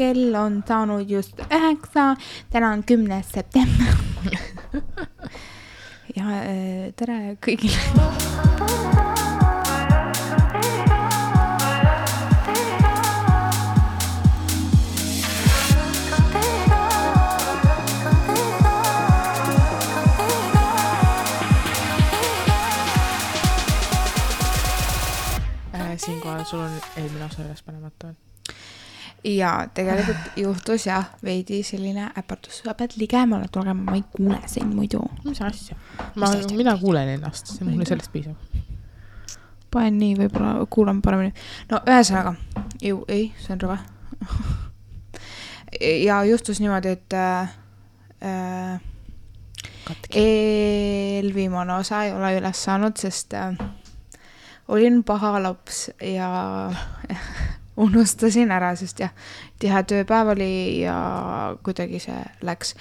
kell on saanud just 9, täna on 10. september. Ja tere kõigile. Siinkohal sul on eelmine osa üles panemata. Ja tegelikult juhtus jah veidi selline äpartus. Sa pead ligemale tulema, ma ei kuule sind muidu. Mis asja? Mina kuulen ennast, see mulle sellest piisab. Panen nii, võib-olla kuulan paremini. No ühesõnaga, ei, see on rõve. Ja juhtus niimoodi, et eelviimane osa ei ole üles saanud, sest olin paha laps ja unustasin ära, sest jah, tihe tööpäev oli ja kuidagi see läks.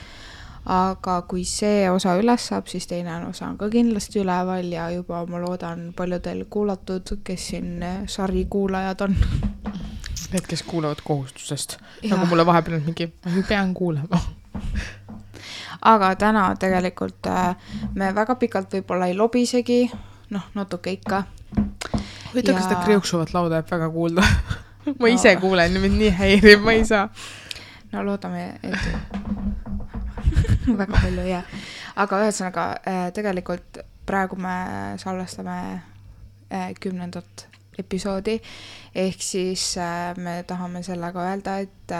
Aga kui see osa üles saab, siis teine osa on ka kindlasti üleval ja juba ma loodan paljudel kuulatud, kes siin sari kuulajad on. Need, kes kuulavad kohustusest. Ja. Nagu mulle vahepeal on mingi, ma pean kuulema. Aga täna tegelikult me väga pikalt võib-olla ei lobisegi, natuke ikka. Võita, kas seda kriuksuvat lauda jääb väga kuulda. Ma ise kuulen, mind nii häirib, ma ei saa. No loodame, et väga palju jää. Aga ühesõnaga, tegelikult praegu me salvestame 10. episoodi, ehk siis me tahame sellega öelda, et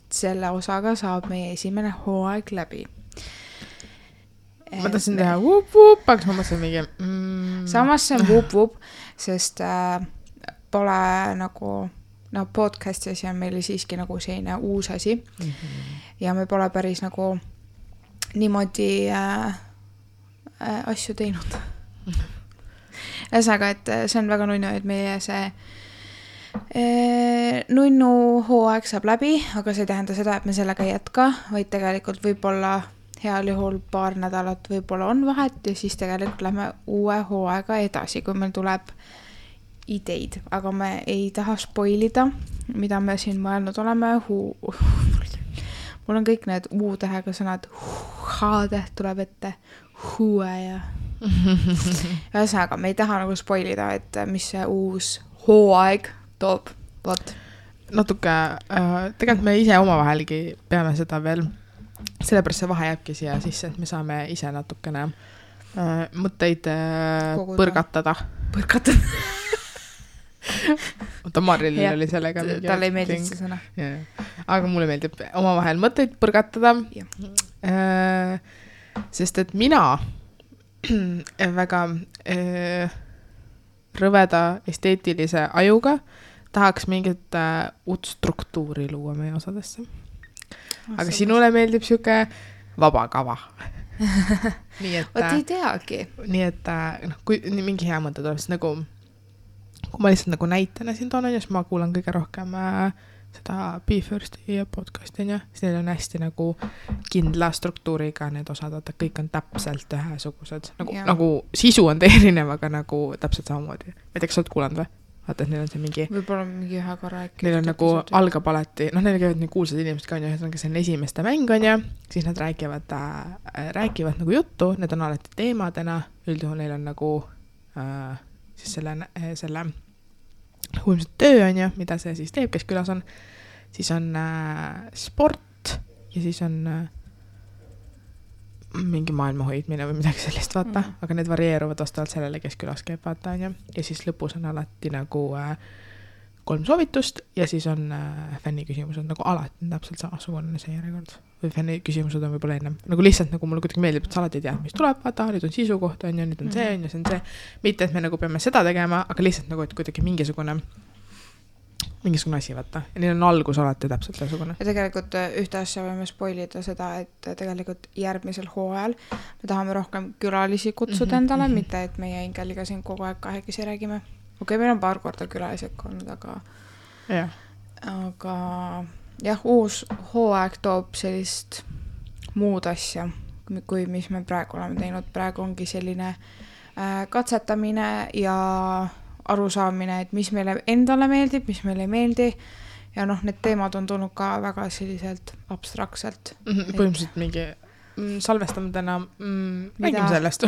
selle osaga saab meie esimene hooaeg läbi. Ma tahtsin teha vup-vup, aga ma mõtlesin mingi... Samas see on vup-vup, sest pole nagu... podcastis ja meil siiski nagu selline uus asi. Ja me pole päris nagu niimoodi asju teinud. Ühesõnaga, et see on väga nunnu, et meie see nunnu hooaeg saab läbi, aga see ei tähenda seda, et me sellega ei jätka, vaid tegelikult võib-olla heal juhul paar nädalat võib-olla on vahet ja siis tegelikult lähme uue hooaega edasi, kui meil tuleb ideid, aga me ei taha spoilida, mida me siin mõelnud oleme. Mul on kõik need U-tähega sõnad, H-täht tuleb ette, huue ja ühesõnaga, me ei taha nagu spoilida, et mis see uus hooaeg toob. Vot. Natuke, tegelikult me ise omavahelgi peame seda veel, sellepärast see vahe jääbki siia sisse, et me saame ise natukene mõtteid põrgatada. Oota, Maril oli sellega mingi... Talle ei meeldib see sõna. Aga mulle meeldib omavahel mõtteid põrgatada. Sest et mina väga rõveda esteetilise ajuga tahaks mingit uut struktuuri luua meie osadesse. Aga sinule meeldib siuke vaba kava. Nii et... Oot ei teagi. Nii et kui mingi hea mõte tuleb, siis nagu kui ma lihtsalt nagu näitena siin toon, siis ma kuulan kõige rohkem seda Be Firsti podcasti, siis neil on hästi nagu kindla struktuuriga need osad, et kõik on täpselt ühesugused. Nagu sisu on erinev, aga nagu täpselt samamoodi. Ma ei tea, kas sa oled kuulanud või? Vaata, et neil on see mingi... Võib-olla mingi ühe korra äkki. Neil on nagu algab alati, neil käivad nii kuulsad inimesed ka on ja see on esimeste mäng on ja siis nad räägivad nagu juttu, need on alati teemadena, üldjuhul neil on nagu siis selle ilmselt töö on ja mida see siis teeb, kes külas on, siis on sport ja siis on mingi maailma hoidmine või midagi sellist, vaata, aga need varieeruvad vastavalt sellele, kes külas käib, vaata, on ja siis lõpus on alati nagu 3 soovitust ja siis on fänniküsimused nagu alati täpselt samasugune see järjekord või fänniküsimused on võib-olla ennem, nagu lihtsalt nagu mulle kuidagi meeldib, et sa alati ei tea, mis tuleb, vaata, nüüd on sisu kohta, on ja nüüd on see, on ja see on see, mitte, et me nagu peame seda tegema, aga lihtsalt nagu, et kuidagi mingisugune asi, vaata. Ja neil on algus alati täpselt ühesugune. Ja tegelikult ühte asja võime spoilida seda, et tegelikult järgmisel hooajal me tahame rohkem külalisi kutsuda endale, mitte et meie Ingeliga siin kogu aeg kahekesi räägime. Okei, meil on paar korda külalised olnud, aga jah, uus hooaeg toob sellist muud asja, kui mis me praegu oleme teinud. Praegu ongi selline katsetamine ja arusaamine, et mis meile endale meeldib, mis meile ei meeldi ja noh, need teemad on tulnud ka väga selliselt abstraktselt. Põhimõtteliselt mingi salvestame täna, räägime sellest.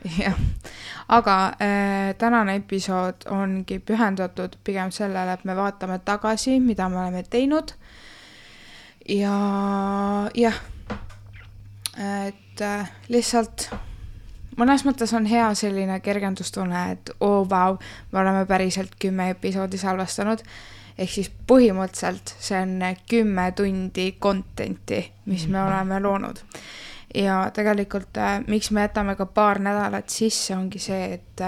Jah, aga tänane episood ongi pühendatud pigem sellele, et me vaatame tagasi, mida me oleme teinud ja jah, et lihtsalt mõnes mõttes on hea selline kergendustunne, et vau, me oleme päriselt 10 episoodi salvestanud, ehk siis põhimõtteliselt see on 10 tundi contenti, mis me oleme loonud. Ja tegelikult, miks me jätame ka paar nädalat sisse, ongi see, et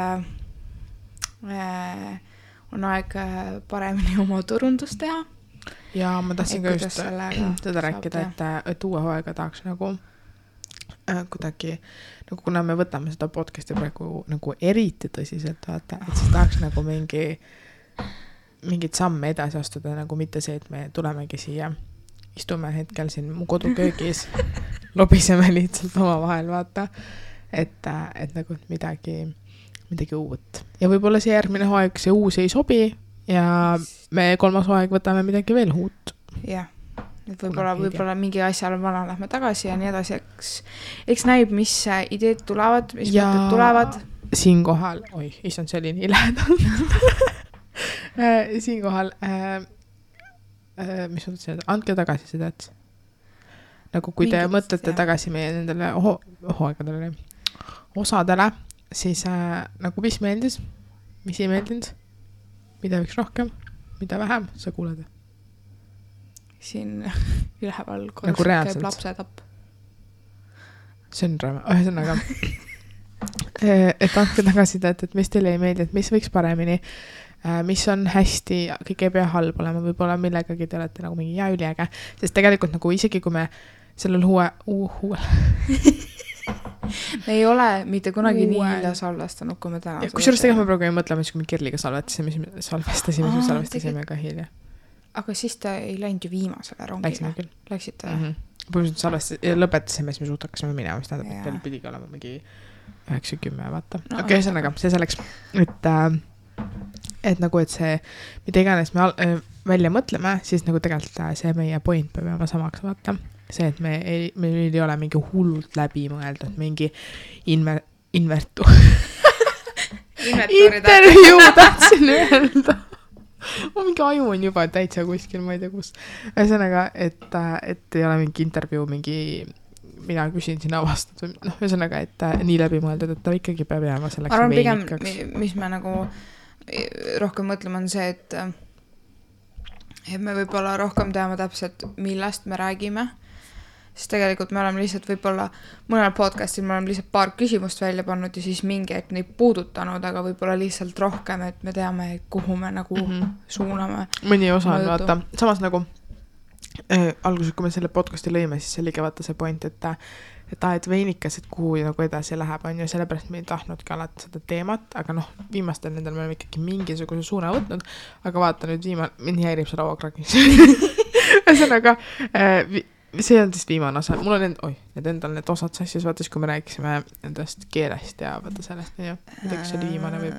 on aeg paremini oma turundust teha. Ja ma tahtsin ka just seda rääkida, et uue hooaega tahaks nagu kuidagi, nagu kuna me võtame seda podcasti praegu nagu eriti tõsiselt, vaata, et siis tahaks nagu mingit samme edasi astuda, nagu mitte see, et me tulemegi siia, istume hetkel siin mu koduköögis, lobiseme lihtsalt oma vahel, vaata, et nagu midagi uut. Ja võib-olla see järgmine hooaeg, see uus ei sobi ja me 3. hooaeg võtame midagi veel uut. Jah. Et võib-olla mingi asjal vana lähme tagasi ja nii edasi, eks näib, mis ideed tulevad, mis mõtted tulevad. Siinkohal, issand, see oli nii lähedal. Siinkohal, mis mõtlesin, andke tagasi seda, et nagu kui te mõtlete tagasi meie nendele hooaegadele, osadele, siis nagu mis meeldis, mis ei meeldinud, mida võiks rohkem, mida vähem, sa kuuled. Siin üleval nagu käib lapsetapp. See on räme. Ühesõnaga, et andke tagasi, et mis teile ei meeldi, et mis võiks paremini, mis on hästi, kõik ei pea halb olema, võib-olla millegagi te olete nagu mingi üliäge, sest tegelikult nagu isegi kui me sellel me ei ole mitte kunagi nii hilja salvestanud, kui me täna kusjuures tegelikult me praegu ei mõtleme, kui me Kirliga salvestasime ka hilja. Aga siis ta ei läinud ju viimasele rongile. Läksite? Põhimõtteliselt lõpetasime, siis me suht hakkasime minema, mis tähendab, et veel pidigi olema mingi 9-10, vaata. Okei, ühesõnaga, see selleks, et nagu, et see, mida iganes me välja mõtleme, siis nagu tegelikult see meie point peab jääma samaks, vaata. See, et meil ei ole mingi hullult läbi mõeldud, mingi intervjuu tahtsin öelda. Mingi aju on juba täitsa kuskil, ma ei tea kus. Ühesõnaga, et ei ole mingi intervjuu, mina küsin siin avastatud. Ühesõnaga, et nii läbi mõeldud, et ta ikkagi peab jääma selleks arvan, veinikaks. Pigem, mis me nagu rohkem mõtleme, on see, et me võib-olla rohkem teame täpselt, millest me räägime. Sest tegelikult me oleme lihtsalt võib-olla mõnel podcastil me oleme lihtsalt paar küsimust välja pannud ja siis mingi aeg neid puudutanud, aga võib-olla lihtsalt rohkem, et me teame, kuhu me nagu suuname. Mõni osa on, vaata. Samas nagu alguses, kui me selle podcasti lõime, siis see oli ka vaata see point, et veinikas, et kuhu nagu edasi läheb, on ju, sellepärast me ei tahtnudki alati seda teemat, aga viimastel nendel me oleme ikkagi mingisuguse suuna võtnud, aga vaata nüüd mind häirib see lauakragis. Ühesõnaga, see on siis viimane osa. Mul on need osad sassis, vaatas, kui me rääkisime endast keelest ja vaata sellest, midagi see oli viimane või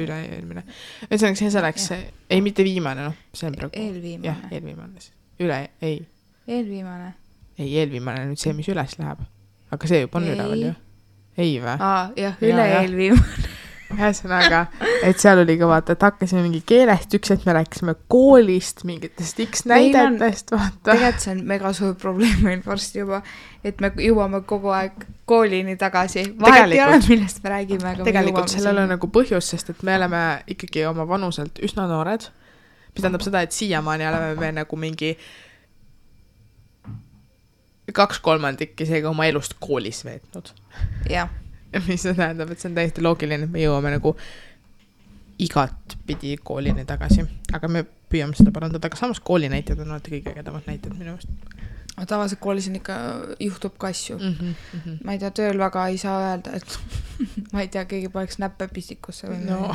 üle-eelmine. Ühesõnaga, see selleks, ei mitte viimane, see on praegu. Eelviimane. Jah, eelviimane. Eelviimane. Ei, eelviimane nüüd see, mis üles läheb. Aga see juba on üleval ju. Ei või? Jah, üle-eelviimane. Ühesõnaga, et seal oli ka vaata, et hakkasime mingi keelest, üks hetk me rääkisime koolist, mingitest X näidetest, vaata. Tegelikult see on mega suur probleem meil varsti juba, et me jõuame kogu aeg koolini tagasi. Vahet ei ole, millest me räägime, aga tegelikult sellel on nagu põhjus, sest et me oleme ikkagi oma vanuselt üsna noored, mis tähendab seda, et siiamaani oleme me nagu mingi 2/3 isegi oma elust koolis veetnud. Jah. Mis see tähendab, et see on täiesti loogiline, et me jõuame nagu igat pidi koolini tagasi. Aga me püüame seda parandada, aga samas koolinäited on alati kõige ägedamad näited minu meelest. Tavaliselt koolis on ikka, juhtub ka asju. Ma ei tea, tööl väga ei saa öelda, et ma ei tea, keegi paneks näppe pistikusse. No.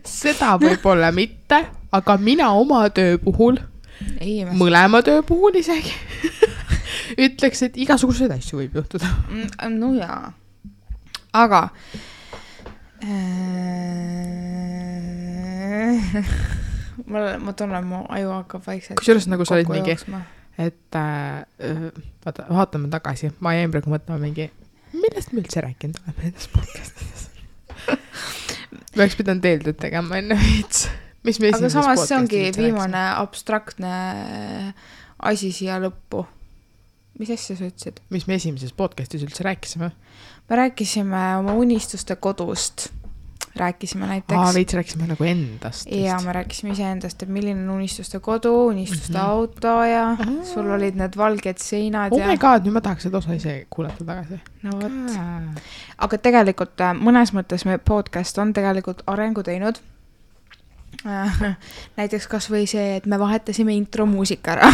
Seda võib-olla mitte, aga mina oma töö puhul, mõlema töö puhul isegi, ütleks, et igasuguseid asju võib juhtuda. No jaa. Aga ma tunnen, mu aju hakkab vaikselt kusjuures nagu sa olid mingi, jooksma. et vaata, vaatame tagasi, ma jäin praegu mõtlema mingi, millest me üldse rääkinud oleme nendes podcastides. Me oleks pidanud eeldud tegema enne veits. Mis me aga samas see ongi viimane abstraktne asi siia lõppu. Mis asja sa ütlesid? Mis me esimeses podcastis üldse rääkisime? Me rääkisime oma unistuste kodust. Rääkisime näiteks. Veits rääkisime nagu endast. Ja me rääkisime ise endast, et milline on unistuste kodu, unistuste auto ja sul olid need valged seinad. Oh my god, nüüd ma tahaks seda osa ise kuulata tagasi. No võt. Aga tegelikult mõnes mõttes me podcast on tegelikult arengu teinud. Näiteks kas või see, et me vahetasime intro muusika ära.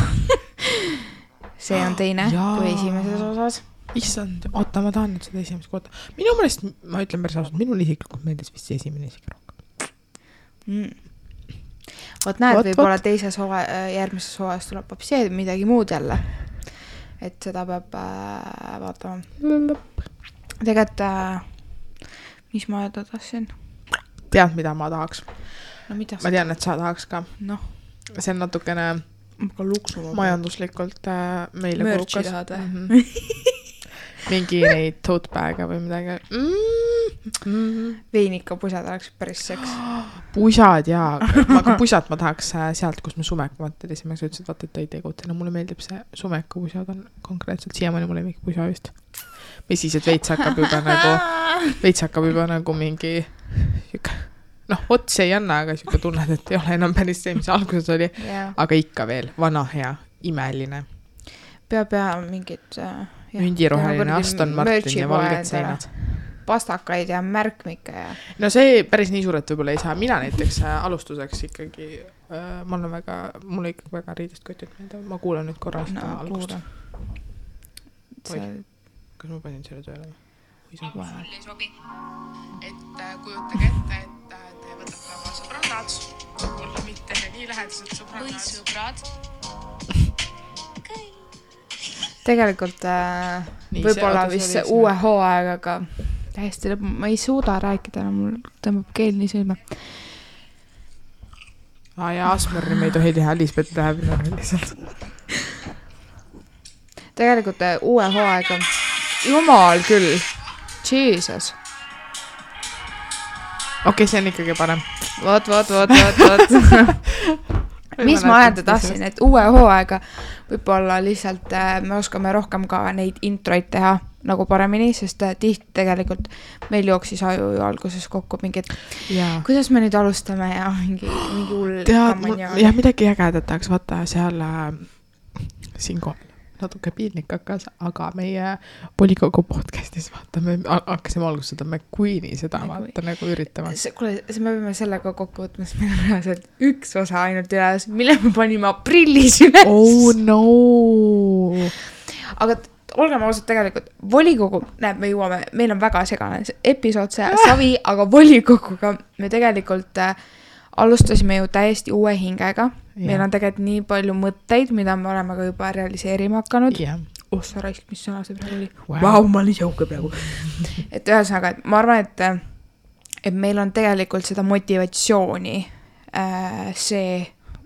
See on teine kui esimeses osas. Issand, oota, ma tahan nüüd seda esimest kohta. Minu mõelest, ma ütlen päris ausalt, minul isiklikult meeldis vist see esimene isegi rohkem. Võt näed, võib-olla teises järgmises hooajas tuleb hoopis midagi muud jälle. Et seda peab vaatama. Tegelikult, mis ma öelda tahtsin? Tead, mida ma tahaks? No, mida ma tean, et sa tahaks ka. No. See on natukene majanduslikult meile mörtsi tahad või? Mingi neid tote bag'e või midagi. Veinika pusad oleks päris seks. Pusad jaa. Aga pusad ma tahaks sealt, kus me Sumekumat telisime. Sa ütlesid, vaata, et ei tegutina. Mulle meeldib see Sumeku pusad on konkreetselt. Siiamaani mulle mingi pusa vist. Mis siis, et veits hakkab juba nagu mingi ots ei anna, aga siuke tunned, et ei ole enam päris see, mis alguses oli. Aga ikka veel vana hea, imeline. Peab mingid mündiroheline Aston Martin ja valged seinad. Pastakaid ja märkmikke ja... No see päris nii suuret võib-olla ei saa. Mina näiteks alustuseks ikkagi mulle ikkagi väga riidest kotit meelde. Ma kuulen nüüd korra seda algust. Kas ma panin selle tööle? Mul ei sobi. Et kujutage ette, et te võtate oma sõbrannad, mulle mitte nii lähedased sõbrannad. Või sõbrad. Tegelikult võib-olla vist uue hooaegaga täiesti lõpp, ma ei suuda rääkida, mul tõmbab keel nii sõime. Ja Asmeri me ei tohi teha, Lisbeth läheb lihtsalt. Tegelikult uue hooaega, jumal küll, Jesus. Okei, see on ikkagi parem. Vot. Mis ma öelda tahtsin, et uue hooaega võib-olla lihtsalt me oskame rohkem ka neid introid teha nagu paremini, sest tihti tegelikult meil jooksis aju ju alguses kokku mingid, kuidas me nüüd alustame ja mingi hull kammanja. Ja midagi ägedat tahaks vaata seal siinkohal. Natuke piinlik hakkas, aga meie volikogu podcastis vaatame, hakkasime alguses seda McQueeni seda vaata nagu üritama. Kuule, me peame sellega kokku võtma, sest meil on reaalselt üks osa ainult üles, mille me panime aprillis üles. Oh no! Aga olgeme ausalt tegelikult, volikogu, näeb, me jõuame, meil on väga segane episood see savi, aga volikoguga me tegelikult alustasime ju täiesti uue hingega. Meil on tegelikult nii palju mõtteid, mida me oleme ka juba realiseerima hakanud. Sa raisk, mis sõna see praegu oli? Vau, ma olin jauke praegu. Et ühesõnaga, ma arvan, et meil on tegelikult seda motivatsiooni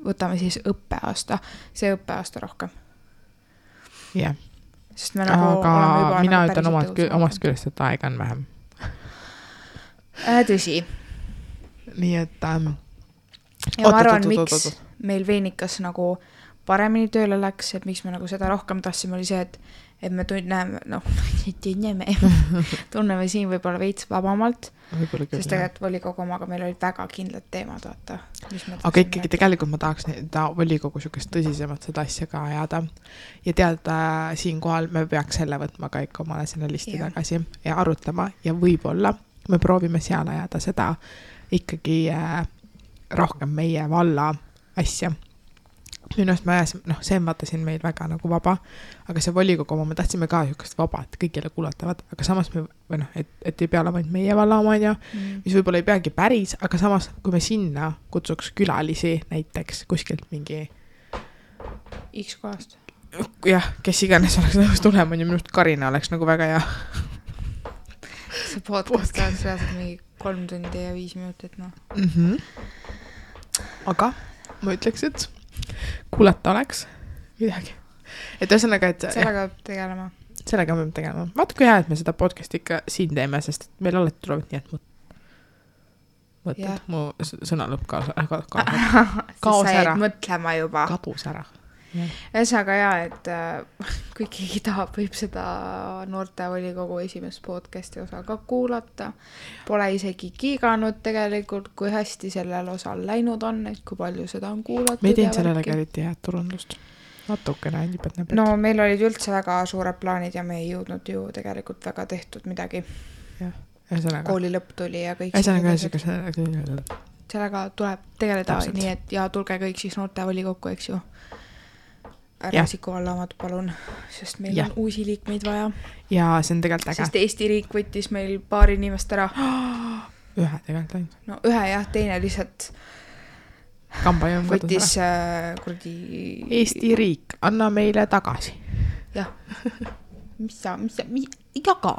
võtame siis see õppeaasta rohkem. Jah. Sest me nagu aga mina ütlen omast küljest, et aega on vähem. Tõsi. Nii et ja ma arvan, miks meil Veinikas nagu paremini tööle läks, et miks me nagu seda rohkem tahtsime, oli see, et me tunneme siin võib-olla veits vabamalt, sest tegelikult volikogu omaga meil olid väga kindlad teemad, vaata. Aga ikkagi tegelikult ma tahaks volikogu sükest tõsisemalt seda asja ka ajada ja teada siinkohal me peaks selle võtma ka ikka omale selle listi tagasi ja arutlema ja võib-olla me proovime seal ajada seda ikkagi rohkem meie valla asja. Minu eest ma ajasime, see on vaata siin meil väga nagu vaba, aga see volikogu oma, me tahtsime ka sükest vaba, et kõigile kuulatavad, aga samas et ei pea olema meie valla oma, mis võib-olla ei peagi päris, aga samas, kui me sinna kutsuks külalisi näiteks kuskilt mingi X kohast. Jah, kes iganes oleks nõus tulema, ja minust Karina oleks nagu väga hea. See podcast oleks mingi 3 tundi ja 5 minutit, Aga ma ütleks, et kuulata oleks midagi. Et ühesõnaga, et sellega peab tegelema. Sellega peab tegelema. Vaata, kui hea, et me seda podcasti ikka siin teeme, sest meil alati tulevad nii, et mõtled. Mu sõna lõpp kaos ära. Mõtlema juba. Kadus ära. Ühesõnaga et kui keegi tahab, võib seda noortevolikogu esimest podcasti osa ka kuulata. Pole isegi kiiganud tegelikult, kui hästi sellel osal läinud on, et kui palju seda on kuulatud. Me ei teinud sellele eriti head turundust. Natukene nipet. No meil olid üldse väga suured plaanid ja me ei jõudnud ju tegelikult väga tehtud midagi. Kooli lõpp tuli ja kõik. Sellega tuleb tegeleda nii, et ja tulge kõik siis noortevolikokku, eks ju. Ära Siku Vallaamad, palun, sest meil on uusi liikmeid vaja. Ja see on tegelikult äge. Sest Eesti riik võttis meil paar inimest ära. Ühe tegelikult ainult. No ühe teine lihtsalt võttis kurdi... Eesti riik, anna meile tagasi. Jah. Mis sa jaga.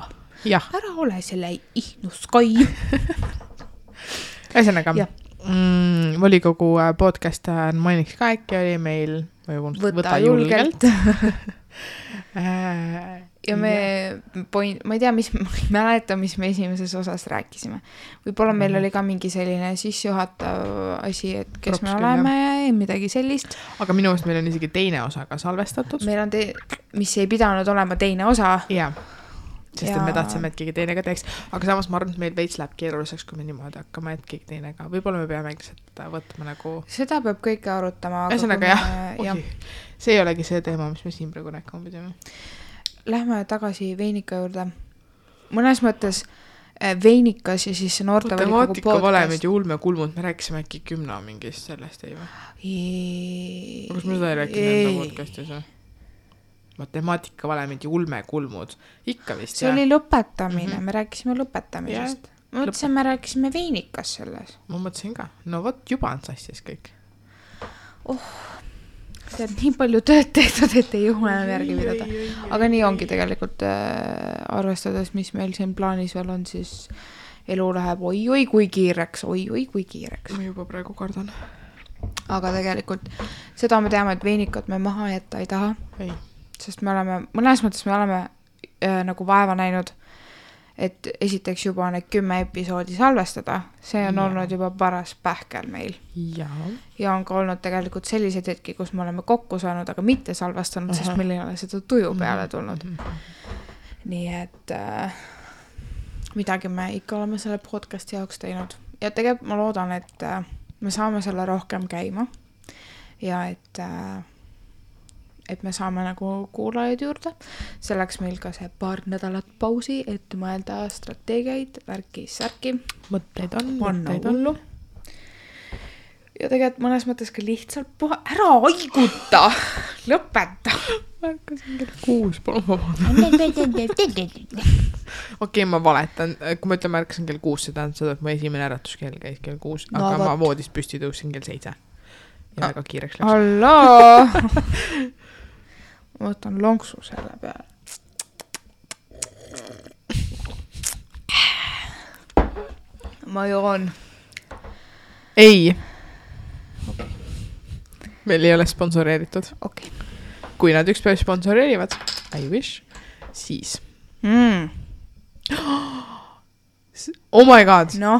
Ära ole selle ihnuskai. Ühesõnaga, volikogu podcast mainiks ka äkki oli meil võta julgelt. Ja ma ei tea, ma ei mäleta, mis me esimeses osas rääkisime. Võib-olla meil oli ka mingi selline sissejuhatav asi, et kes me oleme ja midagi sellist. Aga minu meelest meil on isegi teine osa ka salvestatud. Meil on mis ei pidanud olema teine osa. Jah. Sest et me tahtsime, et keegi teine ka teeks. Aga samas ma arvan, et meil veits läheb keeruliseks, kui me niimoodi hakkama, et keegi teine ka. Võib-olla me peame võtma nagu... Seda peab kõike arutama. Ühesõnaga see ei olegi see teema, mis me siin praegu rääkima pidime. Lähme tagasi Veinika juurde. Mõnes mõttes Veinikas ja siis noortevolikogu podcast. Matemaatika valemid ja ulmekulmud, me rääkisime äkki 10 mingist sellest, ei või? Kas me seda ei rääkinud enda podcastis või? Matemaatika valemid ja ulmekulmud. Ikka vist, see oli lõpetamine, me rääkisime lõpetamisest. Ma mõtlesin, me rääkisime Veinikas selles. Ma mõtlesin ka. No vot, juba on sassis kõik. See on nii palju tööd tehtud, et ei juhu enam järgi pidada. Aga nii ongi tegelikult arvestades, mis meil siin plaanis veel on, siis elu läheb oi kui kiireks. Ma juba praegu kardan. Aga tegelikult seda me teame, et Veinikat me maha jätta ei taha. Ei. Sest mõnes mõttes me oleme nagu vaeva näinud, et esiteks juba need 10 episoodi salvestada. See on olnud juba paras pähkel meil. Ja on ka olnud tegelikult sellised hetki, kus me oleme kokku saanud, aga mitte salvestanud, sest meil ei ole seda tuju peale tulnud. Nii et midagi me ikka oleme selle podcasti jaoks teinud. Ja tegelikult ma loodan, et me saame selle rohkem käima ja et me saame nagu kuulajaid juurde. Selleks meil ka see paar nädalat pausi, et mõelda strateegiaid, värki-särki. Mõtteid on. Hullu. Ja tegelikult mõnes mõttes ka lihtsalt ära haiguta. Lõpeta. Märkasin kell 6, palun vabandada. Okei, ma valetan. Kui ma ütlen märkasin kell 6, see tähendab seda, et mu esimene äratuskell käis kell 6, aga ma voodist püsti tõusin kell 7. Ja väga kiireks läks. Halloo! Ma võtan lonksu selle peale. Ma joon. Ei. Meil ei ole sponsoreeritud. Okay. Kui nad ükspäev sponsoreerivad, I wish, siis. Oh my god. No,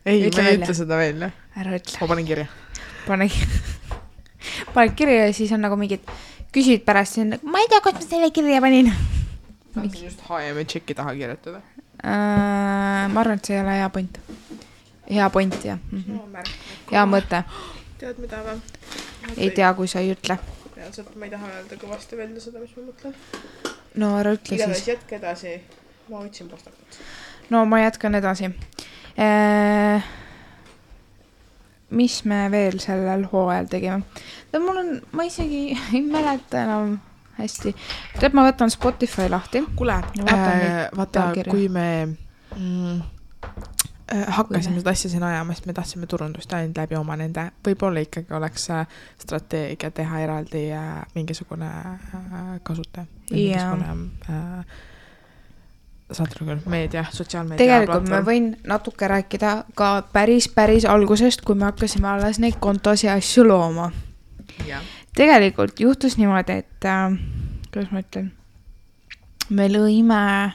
ei, ma ei ütle seda veel. Ära ütle. Ma panen kirja. Pane kirja ja siis on nagu mingid küsid pärast siin, ma ei tea, kas ma selle kirja panin. Tahtsin just HM tšeki taha kirjutada. Ma arvan, et see ei ole hea point. Hea point, jah. Hea mõte. Tead mida või? Ei tea, kui sa ei ütle. Reaalselt ma ei taha öelda kõvasti välja seda, mis ma mõtlen. No ära ütle siis. Igatahes jätke edasi. Ma võtsin pastakut. No ma jätkan edasi. Mis me veel sellel hooajal tegime? Ma isegi ei mäleta enam hästi. Tead, ma võtan Spotify lahti. Kule, vaata, kui me hakkasime seda asja siin ajama, sest me tahtsime turundust ainult läbi oma nende. Võib-olla ikkagi oleks strateegia teha eraldi mingisugune kasutaja. Mingisugune saate küll, meedia, sotsiaalmeedia tegelikult platvorm. ma võin natuke rääkida ka päris algusest, kui me hakkasime alles neid kontosi ja asju looma. Ja. Tegelikult juhtus niimoodi, et kuidas ma ütlen, me lõime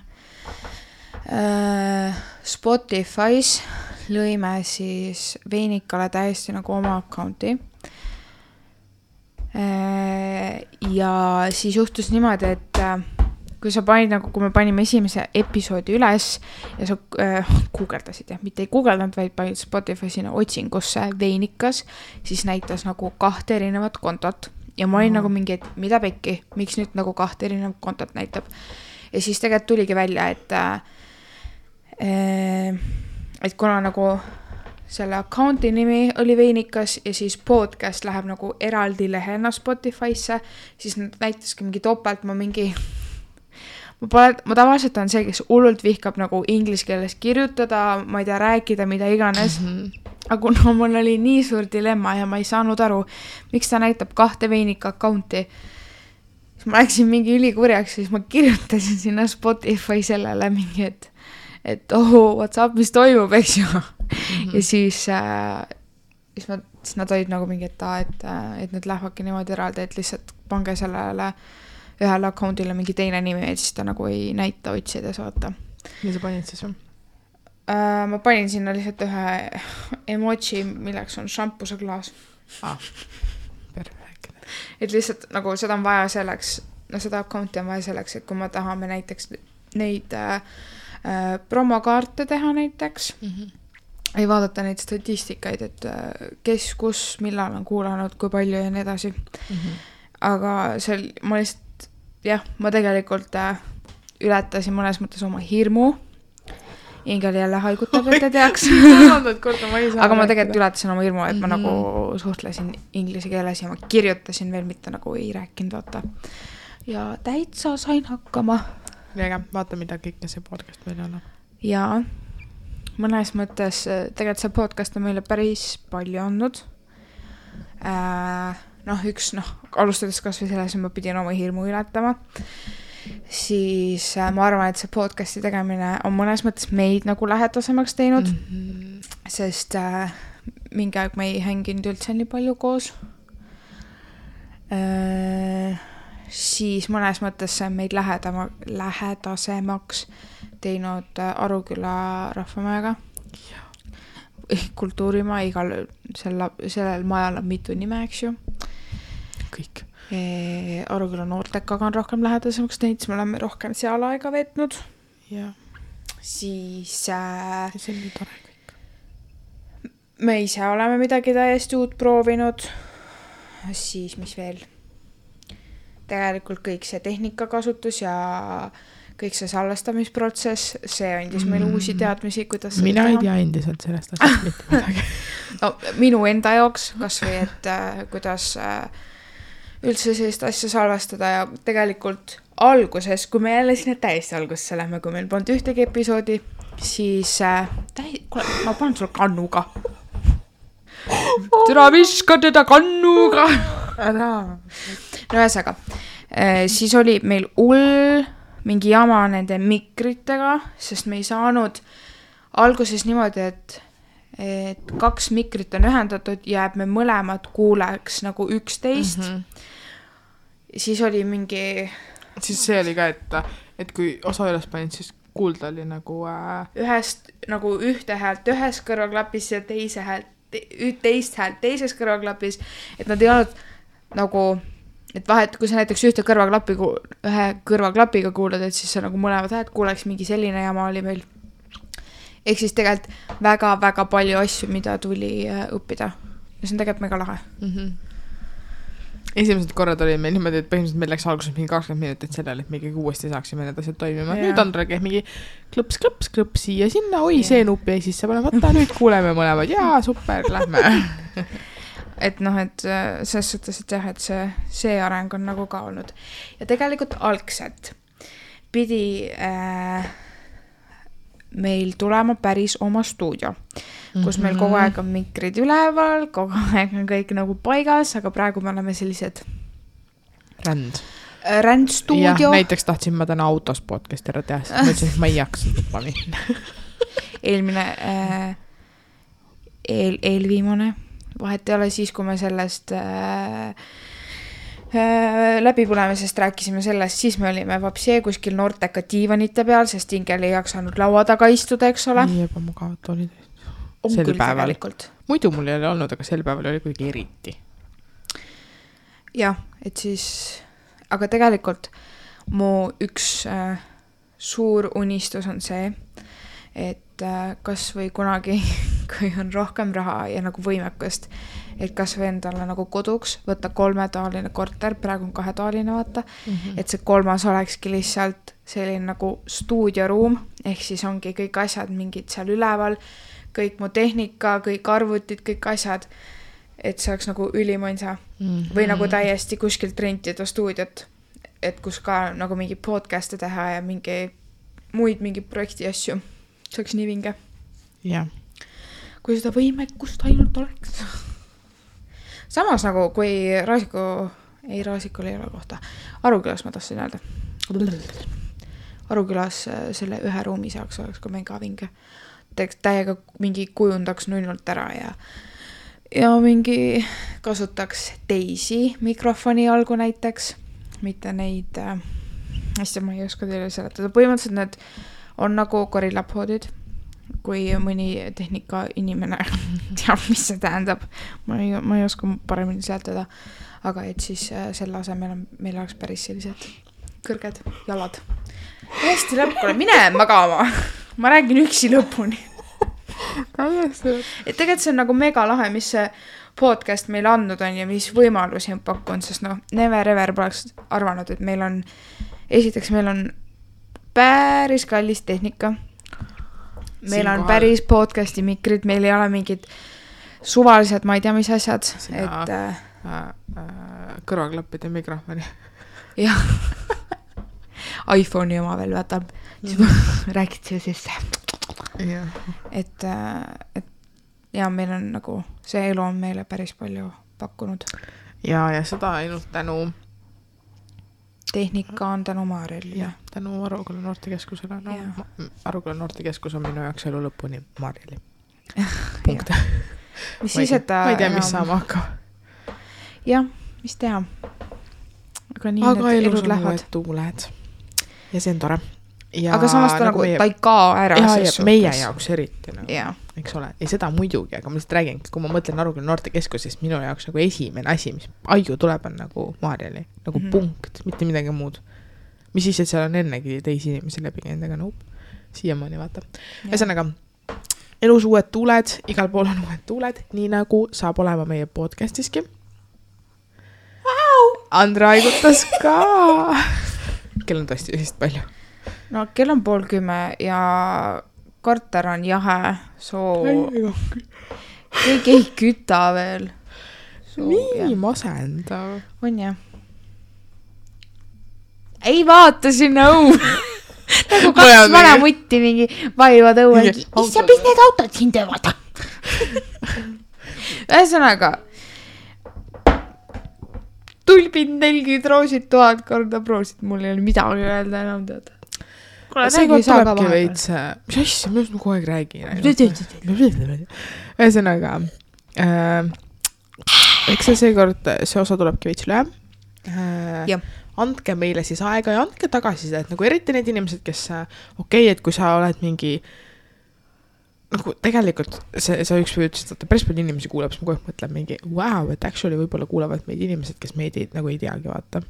Spotify's lõime siis Veinikale täiesti nagu oma accounti. Ja siis juhtus niimoodi, et kui sa panid nagu, kui me panime esimese episoodi üles ja sa guugeldasid, mitte ei guugeldanud, vaid panid Spotify sinna otsingusse Veinikas, siis näitas nagu 2 erinevat kontot ja ma olin nagu mingi, et mida pekki, miks nüüd nagu 2 erinevat kontot näitab. Ja siis tegelikult tuligi välja, et kuna nagu selle accounti nimi oli Veinikas ja siis podcast läheb nagu eraldi lehena Spotify'sse, siis näitaski mingi topelt, ma tavaliselt on see, kes hullult vihkab nagu inglise keeles kirjutada, ma ei tea, rääkida, mida iganes. Aga kuna mul oli nii suur dilemma ja ma ei saanud aru, miks ta näitab 2 Veinika accounti, siis ma läksin mingi ülikurjaks, siis ma kirjutasin sinna Spotify sellele mingi, et what's up, mis toimub, eks ju. Ja siis nad olid nagu mingi, et need lähevadki niimoodi eraldi, et lihtsalt pange sellele ühele accountile mingi teine nimi, et siis ta nagu ei näita otsides, vaata. Ja sa panid siis või? Ma panin sinna lihtsalt ühe emoji, milleks on šampuse klaas. Perfekt. Et lihtsalt nagu seda on vaja selleks, seda accounti on vaja selleks, et kui me tahame näiteks neid promokaarte teha näiteks, ei vaadata neid statistikaid, et kes, kus, millal on kuulanud, kui palju ja nii edasi. Aga ma lihtsalt, ma tegelikult ületasin mõnes mõttes oma hirmu. Ingel jälle haigutab, et te teaks. Aga ma tegelikult ületasin oma hirmu, et ma nagu suhtlesin inglise keeles ja ma kirjutasin veel, mitte nagu ei rääkinud, vaata. Ja täitsa sain hakkama. Väga, vaata, mida kõike see podcast meil on. Ja mõnes mõttes tegelikult see podcast on meile päris palju andnud. Alustades kas või selles, ma pidin oma hirmu ületama. Siis ma arvan, et see podcasti tegemine on mõnes mõttes meid nagu lähedasemaks teinud, sest mingi aeg me ei hänginud üldse nii palju koos. Siis mõnes mõttes see on meid lähedasemaks teinud Aruküla rahvamajaga. Kultuurimaa, sellel majal on mitu nime, eks ju. Kõik. Aruküla noortekaga on rohkem lähedasemaks teinud, siis me oleme rohkem seal aega veetnud. Ja. Siis see on nii tore kõik. Me ise oleme midagi täiesti uut proovinud. Siis mis veel? Tegelikult kõik see tehnikakasutus ja kõik see salvestamisprotsess, see andis meile uusi teadmisi, kuidas seda mina ei tea endiselt sellest asjast mitte midagi. No, minu enda jaoks, kas või, et kuidas üldse sellist asja salvestada ja tegelikult alguses, kui me jälle sinna täiesti algusesse lähme, kui meil polnud ühtegi episoodi, siis kuule, ma panen sulle kannuga. Türa viska teda kannuga. No ühesõnaga, siis oli meil mingi jama nende mikritega, sest me ei saanud alguses niimoodi, et 2 mikrit on ühendatud ja me mõlemad kuuleks nagu 11. Siis oli mingi... Siis see oli ka, et kui osa üles panid, siis kuulda oli nagu... Ühest nagu ühte häält ühes kõrvaklapis ja teist häält teises kõrvaklapis, et nad ei olnud nagu... Et vahet, kui sa näiteks ühe kõrvaklapiga kuulad, et siis sa nagu mõlemad häält kuuleks, mingi selline jama oli meil. Ehk siis tegelikult väga-väga palju asju, mida tuli õppida. Ja see on tegelikult mega lahe. Esimesed korrad oli meil niimoodi, et põhimõtteliselt meil läks alguses mingi 20 minutit sellele, et me ikkagi uuesti saaksime need asjad toimima. Nüüd Andra käib mingi klõps siia sinna, see nupp jäi sisse panemata, nüüd kuuleme mõlemad, jaa, super, lähme. Et et selles suhtes, et jah, et see areng on nagu ka olnud. Ja tegelikult algselt pidi meil tulema päris oma stuudio, kus meil kogu aeg on mikrid üleval, kogu aeg on kõik nagu paigas, aga praegu me oleme sellised rändstuudio. Näiteks tahtsin ma täna autos podcast ära teha, sest ma ütlesin, et ma ei jaksa tuppa minna. Eelmine, eelviimane, vahet ei ole siis, kui me sellest läbipõlemisest rääkisime sellest, siis me olime vapsee kuskil noorteka diivanite peal, sest Ingel ei jaksanud laua taga istuda, eks ole. Nii ebamugavad olid. On Sel küll päeval. tegelikult. Muidu mul ei ole olnud, aga sel päeval oli kuidagi eriti. Jah, et siis, aga tegelikult mu üks suur unistus on see, et kas või kunagi, kui on rohkem raha ja nagu võimekust, et kas või endale nagu koduks võtta 3-toaline korter, praegu on 2-toaline vaata, et see 3. olekski lihtsalt selline nagu stuudioruum, ehk siis ongi kõik asjad mingid seal üleval, kõik mu tehnika, kõik arvutid, kõik asjad, et see oleks nagu ülimõnsa või nagu täiesti kuskilt rentida stuudiot, et kus ka nagu mingi podcast'e teha ja mingi projekti asju. See oleks nii vinge. Jah. Kui seda võimekust ainult oleks. Samas nagu, kui Raasikul ei ole kohta. Arukülas ma tahtsin öelda. Arukülas selle ühe ruumi saaks oleks ka mega vinge. Täiega mingi kujundaks nullult ära ja mingi kasutaks teisi mikrofoni algu näiteks, mitte neid hästi ma ei oska teile seletada. Põhimõtteliselt need on nagu gorillapoodid, kui mõni tehnika inimene teab, mis see tähendab. Ma ei oska paremini seletada, aga et siis selle asemel meil oleks päris sellised kõrged jalad. Hästi lõpule, mine magama. Ma räägin üksi lõpuni. Et tegelikult see on nagu mega lahe, mis see podcast meil andnud on ja mis võimalusi on pakkunud, sest never ever poleks arvanud, et meil on päris kallis tehnika. Meil on päris podcasti mikrid, meil ei ole mingid suvalised, ma ei tea, mis asjad. Kõrvaklappide mikrofoni. Jah. iPhone'i oma veel võtab. Räägid siia sisse. Et ja meil on nagu, see elu on meile päris palju pakkunud. Ja seda ainult tänu tehnika on tänu Maarjali. Ja, tänu Aruküla noortekeskusele. Aruküla noortekeskus on minu jaoks elu lõpuni Maarjali. Punkt. Mis siis, et ma ei tea, mis saama hakkab. Jah, mis teha. Aga nii need elud lähevad. Aga tuuled. Ja see on tore. Ja aga samas ta nagu ta ei kao ära. Ja meie jaoks eriti. Nagu, eks ole. Ja seda muidugi, aga ma lihtsalt räägin, kui ma mõtlen Aruküla noortekeskusest, minu jaoks nagu esimene asi, mis aiu tuleb, on nagu Maarjali. Nagu punkt, mitte midagi muud. Mis siis, et seal on ennegi teisi inimesi läbi endaga siiamaani vaata. Ühesõnaga, elus uued tuuled, igal pool on uued tuuled, nii nagu saab olema meie podcastiski. Andra aigutas ka. Kell on tõesti vist palju. No kell on 9:30 ja korter on jahe, kõik ei küta veel. Nii masendav. On jah. Ei vaata sinna õu. Nagu 2 vana mutti mingi vaivad õue. Issa, mis need autod siin teevad? Ühesõnaga, tulbid 40 roosid 1000 korda proosid, mul ei ole midagi öelda enam teada. See kord tulebki veits, mis asja, ma just kogu aeg räägin. Ühesõnaga, eks see kord, see osa tulebki veits lühem. Andke meile siis aega ja andke tagasisida, et nagu eriti need inimesed, kes et kui sa oled mingi nagu tegelikult sa üks või ütlesid, et päris palju inimesi kuuleb, siis ma kogu aeg mõtlen mingi wow, et actually võib-olla kuulevad meid inimesed, kes meid nagu ei teagi vaata.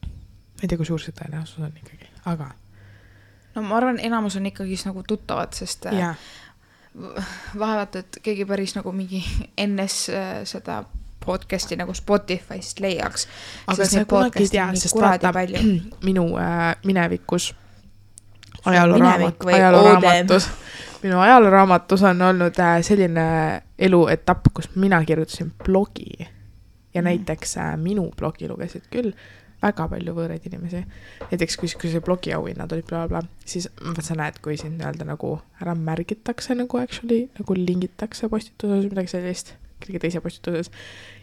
Ma ei tea, kui suur see tõenäosus on ikkagi, aga no ma arvan, enamus on ikkagi nagu tuttavad, sest vahevat, et keegi päris nagu mingi ennes seda podcasti nagu Spotify'st leiaks. Aga see kunagi ei tea, sest vaata minu minevikus ajalooraamatus minu ajalooraamatus on olnud selline eluetapp, kus mina kirjutasin blogi ja näiteks minu blogi lugesid küll väga palju võõraid inimesi. Näiteks kui see blogi auhinnad olid bla, siis sa näed, kui siin öelda nagu ära märgitakse nagu actually, nagu lingitakse postituses midagi sellist. kellegi teise postituses.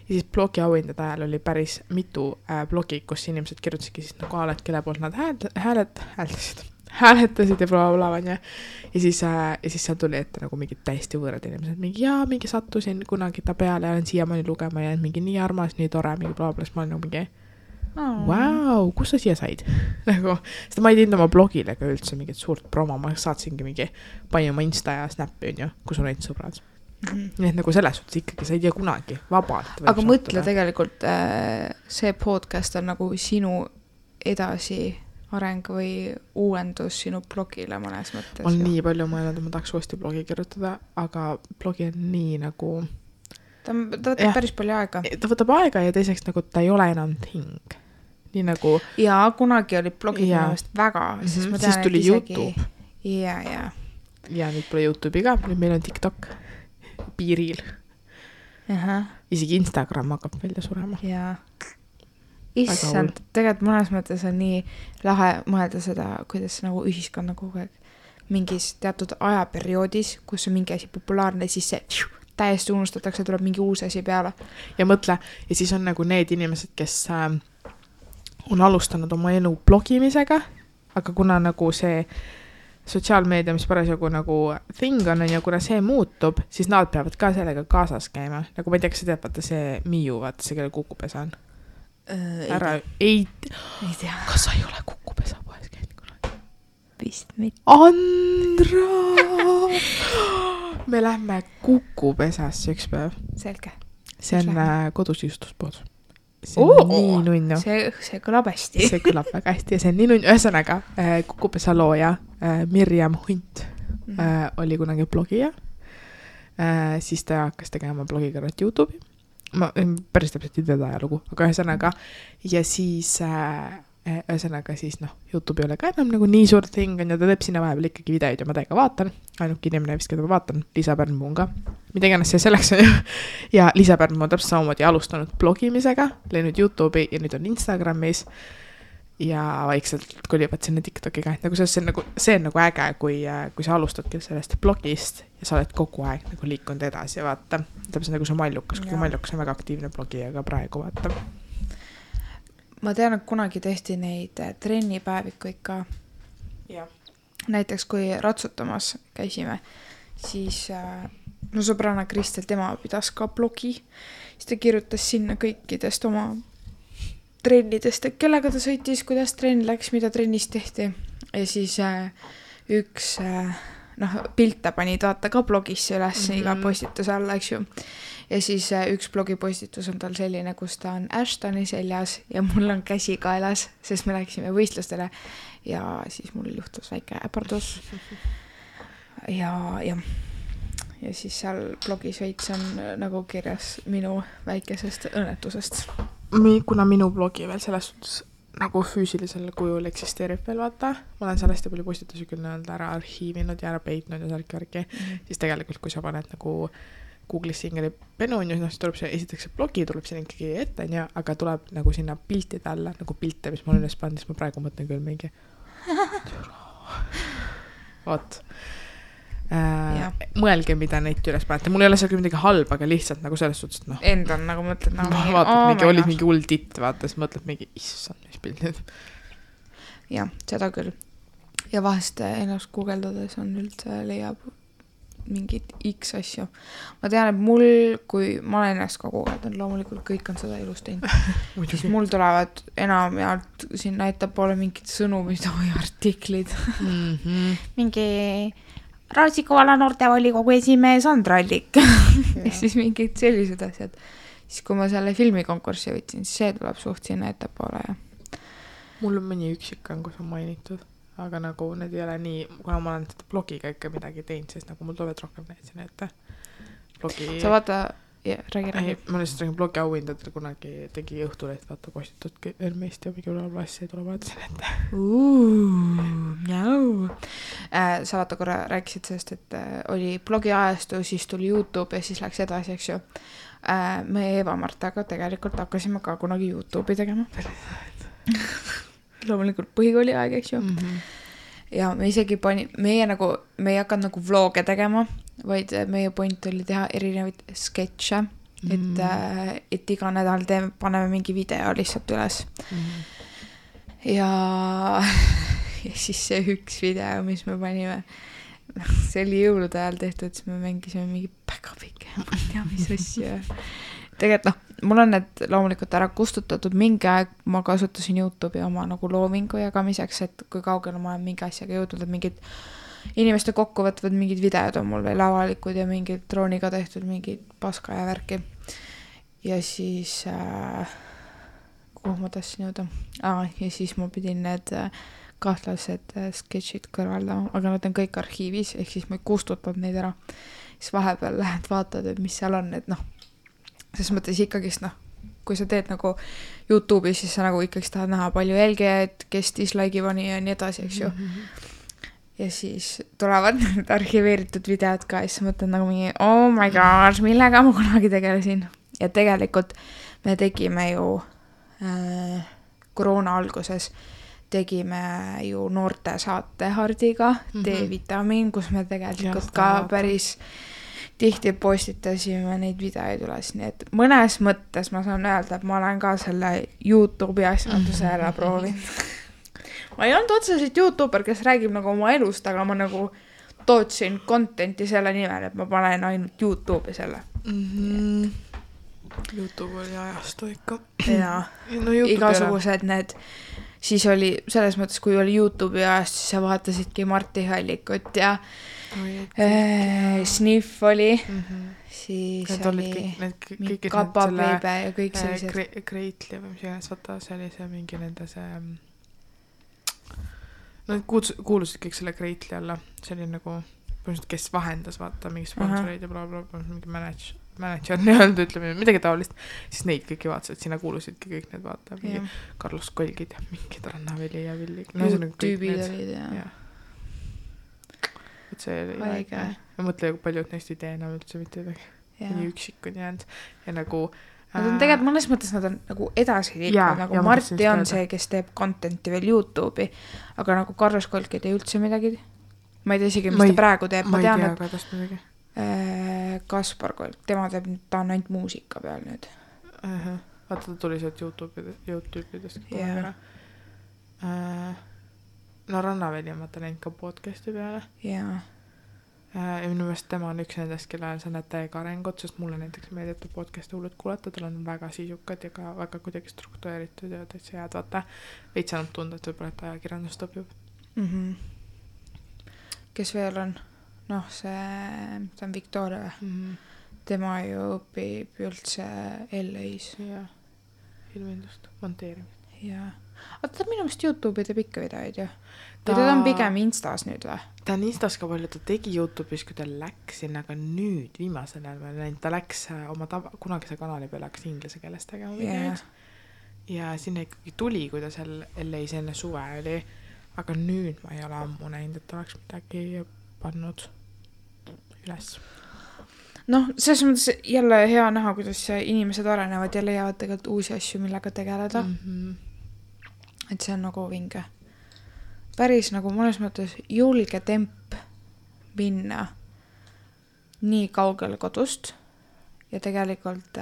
Ja siis blogi auhindade ajal oli päris mitu blogi, kus inimesed kirjutasidki siis nagu alad, kelle poolt nad hääletasid ja blablabla. Ja siis seal tuli ette nagu mingid täiesti võõrad inimesed. Mingi sattusin kunagi ta peale ja olen siiamaani lugema ja mingi nii armas, nii tore, mingi blablabla. Siis ma olen nagu mingi Vau, kus sa siia said? Nagu, sest ma ei teinud oma blogile ka üldse mingit suurt promo, ma saatsingi mingi panin oma Insta ja Snappi, on ju, kus on neid sõbrad. Nii et nagu selles suhtes ikkagi sa ei tea kunagi vabalt. Aga mõtle tegelikult, see podcast on nagu sinu edasi areng või uuendus sinu blogile mõnes mõttes. Ma olen nii palju mõelnud, et ma tahaks uuesti blogi kirjutada, aga blogi on nii nagu... Ta võtab päris palju aega. Ta võtab aega ja teiseks nagu ta ei ole enam thing. Nii nagu... Ja kunagi oli blogid mõnest väga. Siis tuli YouTube. Ja. Ja nüüd pole YouTube'i ka. Nüüd meil on TikTok piiril. Isegi Instagram hakkab välja surema. Ja. Issand, tegelikult mõnes mõttes on nii lahe mõelda seda, kuidas nagu ühiskonna kogu aeg mingis teatud ajaperioodis, kus on mingi asi populaarne, siis see täiesti unustatakse, tuleb mingi uus asi peale. Ja mõtle, ja siis on nagu need inimesed, kes on alustanud oma elu blogimisega, aga kuna nagu see sotsiaalmeedia, mis parasjagu nagu thing on ja kuna see muutub, siis nad peavad ka sellega kaasas käima. Nagu ma ei tea, kas sa tead, vaata see Miu, vaata see, kelle Kukupesa on. Ei tea. Kas sa ei ole Kukupesa poes käinud kunagi? Vist mitte. Andra! Me lähme Kukupesasse üks päev. Selge. See on kodus justuspood. See on nii nunnu. See kõlab hästi. See kõlab väga hästi ja see on nii nunnu. Ühesõnaga, Kukupesa looja Mirjam Hunt oli kunagi blogija. Siis ta hakkas tegema blogikarrat YouTube'i. Ma päris täpselt ei teda ajalugu, aga ühesõnaga ja siis YouTube ei ole ka enam nagu nii suur thing on ja ta teeb sinna vahepeal ikkagi videoid ja ma täiega vaatan. Ainuke inimene vist, keda ma vaatan, Liisa Pärnpuu on ka. Mida iganes see selleks on ju. Ja Liisa Pärnpuu on täpselt samamoodi alustanud blogimisega, läinud YouTube'i ja nüüd on Instagramis ja vaikselt kolivad sinna TikTokiga. Nagu see on nagu äge, kui sa alustadki sellest blogist ja sa oled kogu aeg nagu liikunud edasi ja vaata. Täpselt nagu see Mallukas, kui Mallukas on väga aktiivne blogi ja ka praegu vaata. Ma tean, et kunagi tehti neid trennipäevikuid ka. Ja. Näiteks kui ratsutamas käisime, siis no sõbrana Kristel, tema pidas ka blogi. Siis ta kirjutas sinna kõikidest oma trennidest, et kellega ta sõitis, kuidas trenn läks, mida trennis tehti. Ja siis üks pilte pani vaata ka blogisse üles iga postituse alla, eks ju. Ja siis üks blogipostitus on tal selline, kus ta on Ashtoni seljas ja mul on käsi kaelas, sest me läksime võistlustele ja siis mul juhtus väike äpardus. Ja siis seal blogis veits on nagu kirjas minu väikesest õnnetusest. Kuna minu blogi veel selles suhtes nagu füüsilisel kujul eksisteerib veel, vaata. Ma olen sellest ja palju postitusi küll ära arhiivinud ja ära peitnud ja särki. Siis tegelikult, kui sa paned nagu Google'is ingeli penu, siis tuleb see, esiteks see blogi tuleb siin ikkagi ette, aga tuleb nagu sinna piltide alla, nagu pilte, mis ma olen üles pannud, siis ma praegu mõtlen küll mingi. Oot. Mõelge, mida neid üles panete. Mul ei ole seal küll midagi halba, aga lihtsalt nagu selles suhtes, et End on nagu mõtled nagu mingi, olid mingi hull titt, vaata, siis mõtled mingi, issand, mis pildid. Ja, seda küll. Ja vahest ennast guugeldades on üldse leiab mingid X asju. Ma tean, et mul, kui ma olen ennast ka guugeldanud, loomulikult kõik on seda ilus teinud. Siis mul tulevad enam ja siin näitab poole mingid sõnumid või artiklid. Mingi Raasikuvalla noortevolikogu esimees Andra Allik. Ja siis mingid sellised asjad. Siis kui ma selle filmikonkurssi võtsin, siis see tuleb suht sinna ettepoole. Ja. Mul on mõni üksik on, kus on mainitud. Aga nagu need ei ole nii, kuna ma olen seda blogiga ikka midagi teinud, siis nagu mul tulevad rohkem need siin ette. Blogi... Sa vaata, räägi. Ma lihtsalt räägin blogi auhindadel kunagi tegi Õhtuleht, vaata postitud Ermeist ja mingi ülevalvassi ei tule vaata siin ette. Sa vaata korra rääkisid sellest, et oli blogi ajastu, siis tuli YouTube ja siis läks edasi, eks ju. Me Eva-Martaga tegelikult hakkasime ka kunagi YouTube'i tegema. Loomulikult põhikooli aeg, eks ju. Ja me isegi me ei hakanud nagu vloge tegema, vaid meie point oli teha erinevaid sketše et iga nädal paneme mingi video lihtsalt üles. Ja siis see üks video, mis me panime, see oli jõulude ajal tehtud, siis me mängisime mingi päkapike, ma ei tea, mis asja. Tegelikult mul on need loomulikult ära kustutatud, mingi aeg ma kasutasin YouTube'i oma nagu loomingu jagamiseks, et kui kaugele ma olen mingi asjaga jõudnud, et mingid inimeste kokkuvõtvad mingid videod on mul veel avalikud ja mingid drooniga tehtud mingid paska ja värki. Ja siis kuhu ma tahtsin jõuda? Ja siis ma pidin need kahtlased sketšid kõrvaldama, aga nad on kõik arhiivis, ehk siis ma ei kustutanud neid ära. Siis vahepeal lähed vaatad, et mis seal on, et ses mõttes ikkagist, kui sa teed nagu YouTube'is, siis sa nagu ikkagist tahad näha palju jälgijaid, kes dislike'i pani ja nii edasi, eks ju. Ja siis tulevad need arhiveeritud videod ka ja siis mõtled nagu mingi, oh my gosh, millega ma kunagi tegelesin. Ja tegelikult me tegime ju koroona alguses tegime ju noorte saate Hardiga D-vitamiin, kus me tegelikult ka päris tihti postitasime neid videoid üles, nii et mõnes mõttes ma saan öelda, et ma olen ka selle YouTube'i asjanduse ära proovinud. Ma ei olnud otseselt YouTuber, kes räägib nagu oma elust, aga ma nagu tootsin contenti selle nimel, et ma panen ainult YouTube'i selle. YouTube oli ajastu ikka. Ja no, igasugused need, siis oli selles mõttes, kui oli YouTube'i ajast, siis sa vaatasidki Marti Hallikut ja Sniff oli, siis oli Kapapiibe ja kõik sellised. Kreitli või mis iganes, vaata, see oli see mingi nende see, no kuulusid kõik selle Kreitli alla, see oli nagu, kes vahendas, vaata, mingi sponsoreid ja blablabla, mingi manager nii-öelda, ütleme, midagi taolist, siis neid kõiki vaatasid, sinna kuulusidki kõik need, vaata, mingi Carlos Kolgid ja mingid Rannaveli ja Villi. Tüübid olid ja. Et see oli väike. Ma mõtlen, kui paljud neist ei tee enam üldse mitte midagi. Nii üksikud jäänud. Ja nagu... Nad on tegelikult mõnes mõttes nad on nagu edasi liikunud, nagu Marti on see, kes teeb contenti veel YouTube'i, aga nagu Carlos Kolk ei tee üldse midagi. Ma ei tea isegi, mis ta praegu teeb. Ma ei tea ka tast midagi. Kaspar Kolk, tema teeb, ta on ainult muusika peal nüüd. Vaata, ta tuli sealt YouTube'idest. No Rannaveli on vaata näinud ka podcasti peale. Jaa. Ja minu meelest tema on üks nendest, kellel sa näed täiega arengut, sest mulle näiteks meeldib podcasti hullud kuulata, tal on väga sisukad ja ka väga kuidagi struktureeritud ja täitsa head, vaata. Veits saanud tunda, et võib-olla et ajakirjandust õpib. Kes veel on? Noh, see on Victoria. Tema ju õpib üldse LA-s. Jaa, ilmindust, monteerimist. Jaa. Aga ta minu meelest YouTube'i teeb ikka videoid ju. Ta on pigem Instas nüüd või? Ta on Instas ka palju, ta tegi YouTube'is, kui ta läks sinna, aga nüüd viimasel ajal ma näin, ta läks oma kunagise kanali peale hakkas inglise keeles tegema videoid. Ja sinna ikkagi tuli, kui ta seal LA-s enne suve oli, aga nüüd ma ei ole ammu näinud, et ta oleks midagi pannud üles. Noh, selles mõttes jälle hea näha, kuidas inimesed arenevad ja leiavad tegelikult uusi asju, millega tegeleda. Et see on nagu vinge. Päris nagu mõnes mõttes julge temp minna nii kaugele kodust ja tegelikult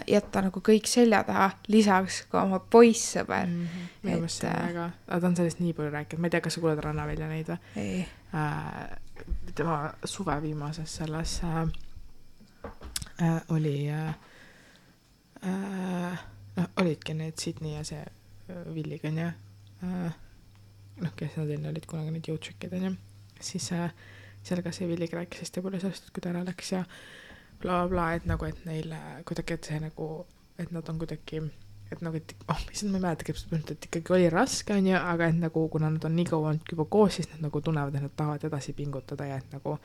jätta nagu kõik selja taha, lisaks ka oma poissõber. Minu meelest see on väga, ta on sellest nii palju rääkinud, ma ei tea, kas sa kuuled Rannavälja neid või? Ei. Tema suve viimases selles oli olidki need Sydney ja see Villiga on ja kes nad enne olid kunagi need jõudsükid on ja siis seal ka see Villiga rääkis hästi palju sellest, et kui ta ära läks ja bla bla, et nagu, et neil kuidagi, et see nagu, et nad on kuidagi, et nagu, et issand, ma ei mäleta, et ikkagi oli raske on ja, aga et nagu, kuna nad on nii kaua olnud juba koos, siis nad nagu tunnevad, et nad tahavad edasi pingutada ja et nagu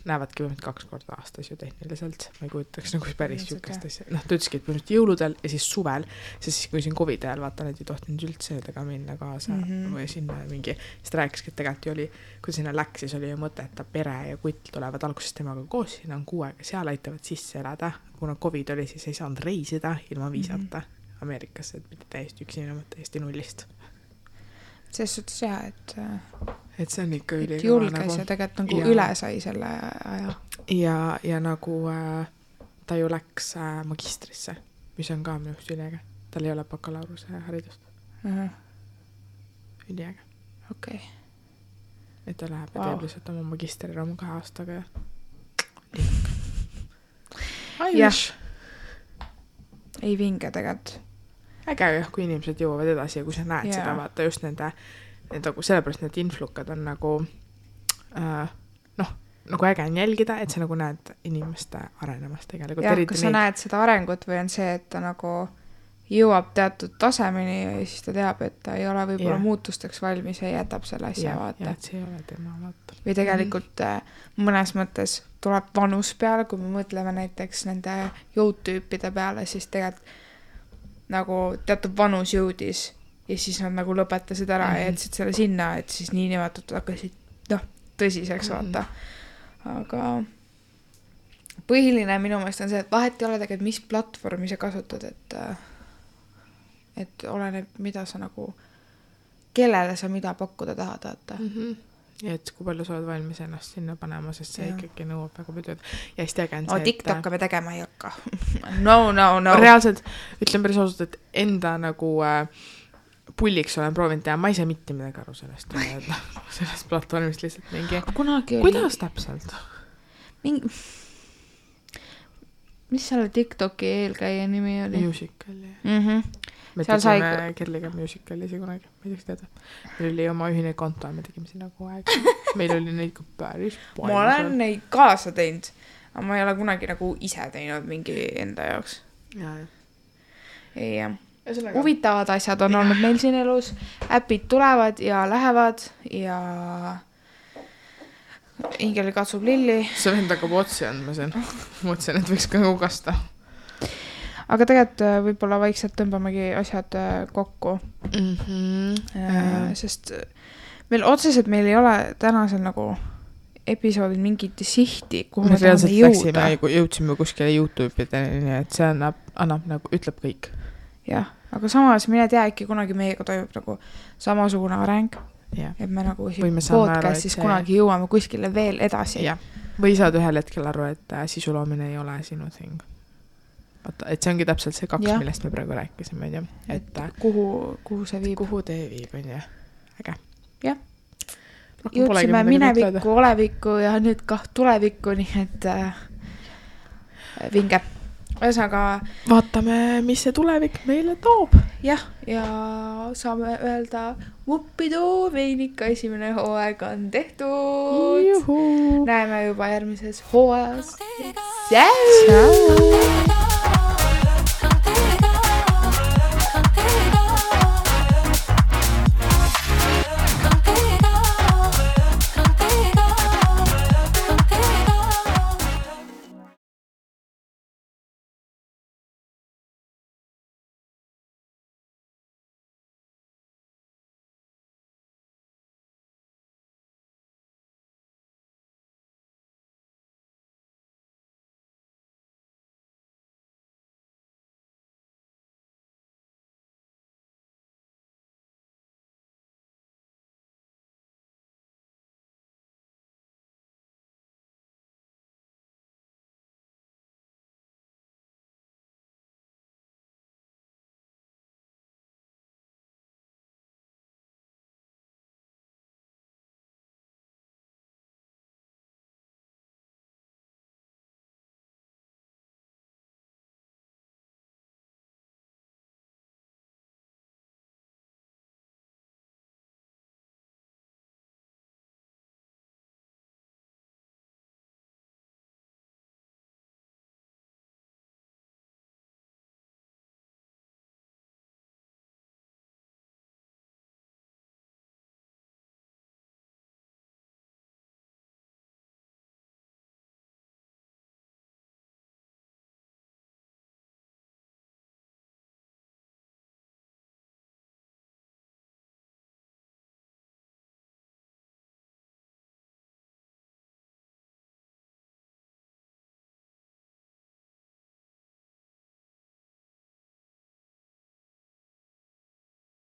näevadki 2 korda aastas ju tehniliselt. Ma ei kujutaks nagu päris sükest asja. Ta ütleski, et põhimõtteliselt jõuludel ja siis suvel, siis kui siin COVID ajal vaata, need ei tohtinud üldse tega minna kaasa või sinna mingi, siis ta rääkiski, et tegelikult oli, kui sinna läks, siis oli ju mõte, et ta pere ja kutt tulevad alguses temaga koos, siin on 6 aega, seal aitavad sisse elada. Kuna COVID oli, siis ei saanud reisida ilma viisata Ameerikasse, et mitte täiesti üksi minema, täiesti nullist. Selles suhtes jah, et see on ikka julges nagu, ja tegelikult nagu üle sai selle aja. Ja nagu ta ju läks magistrisse, mis on ka minu üliäge. Tal ei ole bakalaureuse haridust. Üliäge. Okei. Et ta läheb ja teeb lihtsalt oma magistriraamu 2 aastaga ja Jah. Ei vinge tegelikult. Äge jah, kui inimesed jõuavad edasi ja kui sa näed seda, vaata just nende sellepärast need influkad on nagu nagu äge on jälgida, et sa nagu näed inimeste arenemast tegelikult. Jah, kui sa näed seda arengut või on see, et ta nagu jõuab teatud tasemeni ja siis ta teab, et ta ei ole võib-olla muutusteks valmis ja jätab selle asja, vaata. Ja, et see ei ole tema, vaata. Või tegelikult mõnes mõttes tuleb vanus peale, kui me mõtleme näiteks nende jõudtüüpide peale, siis tegelikult nagu teatud vanus jõudis ja siis nad nagu lõpetasid ära ja jätsid selle sinna, et siis niinimetatud hakkasid tõsiseks, vaata. Aga põhiline minu meelest on see, et vahet ei ole tegelikult, mis platvormi sa kasutad, et oleneb, mida sa nagu, kellele sa mida pakkuda tahad, vaata. Ja et kui palju sa oled valmis ennast sinna panema, sest see ikkagi nõuab väga palju. Ja siis tegin see, TikTok'e me tegema ei hakka. No. Reaalselt ütlen päris ausalt, et enda nagu pulliks olen proovinud teha, ma ei saa mitte midagi aru sellest platvormist lihtsalt mingi. Kuidas täpselt? Mis selle TikToki eelkäija nimi oli? Musical.ly. Me tegime Kerliga Musical'isi kunagi, ma ei teaks teada. Meil oli oma ühine konto ja me tegime sinna kogu aeg. Meil oli neid ka päris palju. Ma olen neid kaasa teinud, aga ma ei ole kunagi nagu ise teinud mingi enda jaoks. Ja. Huvitavad asjad on olnud meil siin elus, äpid tulevad ja lähevad ja Ingeli katsub lilli. See vend hakkab otsi andma siin. Mõtlesin, et võiks ka kasta. Aga tegelikult võib-olla vaikselt tõmbamegi asjad kokku. Sest meil ei ole tänasel nagu episoodil mingit sihti, kuhu me tahame jõuda. Jõudsime kuskile YouTube'ideni, et see annab nagu, ütleb kõik. Jah, aga samas mine tea, äkki kunagi meiega toimub nagu samasugune areng, et me nagu podcastis kunagi jõuame kuskile veel edasi. Ja. Või saad ühel hetkel aru, et sisuloomine ei ole sinu thing. Et see ongi täpselt see 2, millest me praegu rääkisime. Et kuhu see viib? Kuhu tee viib, on jah. Äge. Jah. Jõudsime minevikku, olevikku ja nüüd ka tulevikku, nii et vinge. Ühesõnaga vaatame, mis see tulevik meile toob. Jah, ja saame öelda vuppidoo, meil ikka esimene hooaeg on tehtud. Juhu. Näeme juba järgmises hooajas. Ciao!